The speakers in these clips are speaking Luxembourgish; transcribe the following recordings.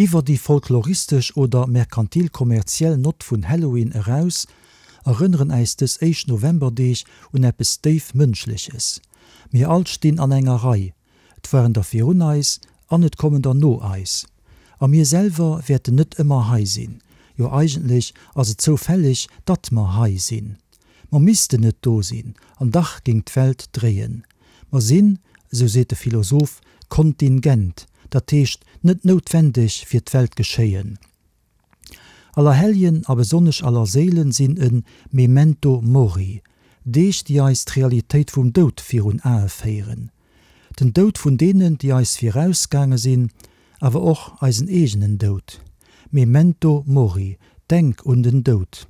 Iwwer déi folkloristesch oder merkantil-kommerziell Nott vun Halloween eraus, erënneren äis dës éischt Novemberdeeg un eppes déif Mënschleches. Mir all stinn an enger Rei, et waren der virun eis an et kommen der no eis. A mir selwer wäerten net ëmmer hei sinn. Jo eigentlech ass et zoufälleg, datt mer hei sinn. Mer missten net do sinn, an dach géing d'Welt dréien. Mer sinn, esou seet de Philosoph, kontingent, dat heescht net noutwendeg fir d'Weltgeschéien. Allerhelljen a besonnesch Allerséilen sinn e Memento mori, Deeg, déi eis d'Realitéit vum Doud virun Ae féieren. Den Doud vun deenen, déi eis virausgaange sinn, awer och eisen eegenen Doud. Memento mori, denk un den Doud.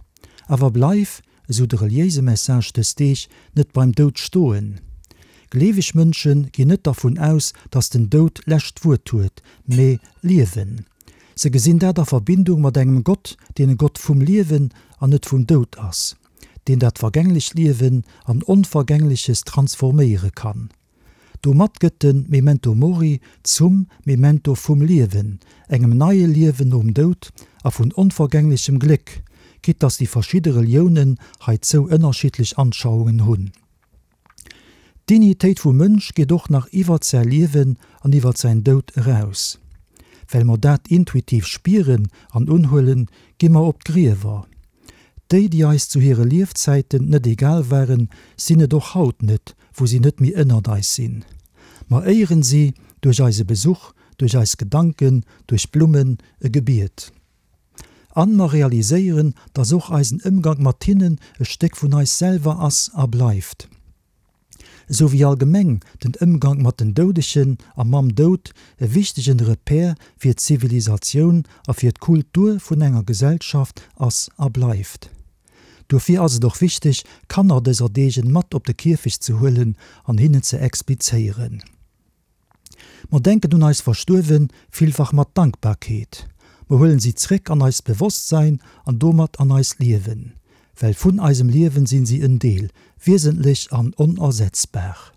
Awer bleif, esou de reliéise Message dës Deeg, net beim Doud stoen. Gleeweg Mënsche ginn net dervun aus, datt den Doud d'lescht Wuert huet, mee Liewen. Se gesinn dat a Verbindung mat engem Gott, deen e Gott vum Liewen an net vum Doud ass, deen dat vergänglecht Liewen an Onvergängleches transforméiere kann. Domat gëtt de Memento Mori zum Memento vum Liewen, engem neie Liewen nom Doud a vun onvergänglechem Gléck, quitte dass déi verschidde Reliounen heizou ënnerschiddlech Anschauungen hunn. D'Dignitéit vum Mënsch geet och nach iwwert säi Liewen an iwwert säin Doud eraus. Well mer dat intuitiv spieren an unhuelen, gi mer op d'Griewer. Déi, déi eis zu hire Liefzäiten net egal waren, sinn et och haut net, wou si net méi ënnert eis sinn. Mer éieren si duerch eise Besuch, duerch eis Gedanken, duerch Blummen, e Gebiet. An mer realiséieren, dass och eisen Ëmgank mat hinnen e Stéck vun eis selwer ass a bleift. Esou wéi allgemeng den Ëmgank mat den Doudegen a mam Doud e wichtegen Repère fir d'Zivilisatioun a fir d'Kultur vun enger Gesellschaft ass a bleift. Dofir ass et och wichteg, Kanner dëser Deegen mat op de Kierfecht ze huelen an hinnen ze explizéieren. Mer denken un eis Verstuerwen villfach mat Dankbarkeet. Mer huelen si zréck an eist Bewosstsein an domat an eist Liewen, well vun eisem Liewen sinn si en Deel, wiesentlech an onersetzbar.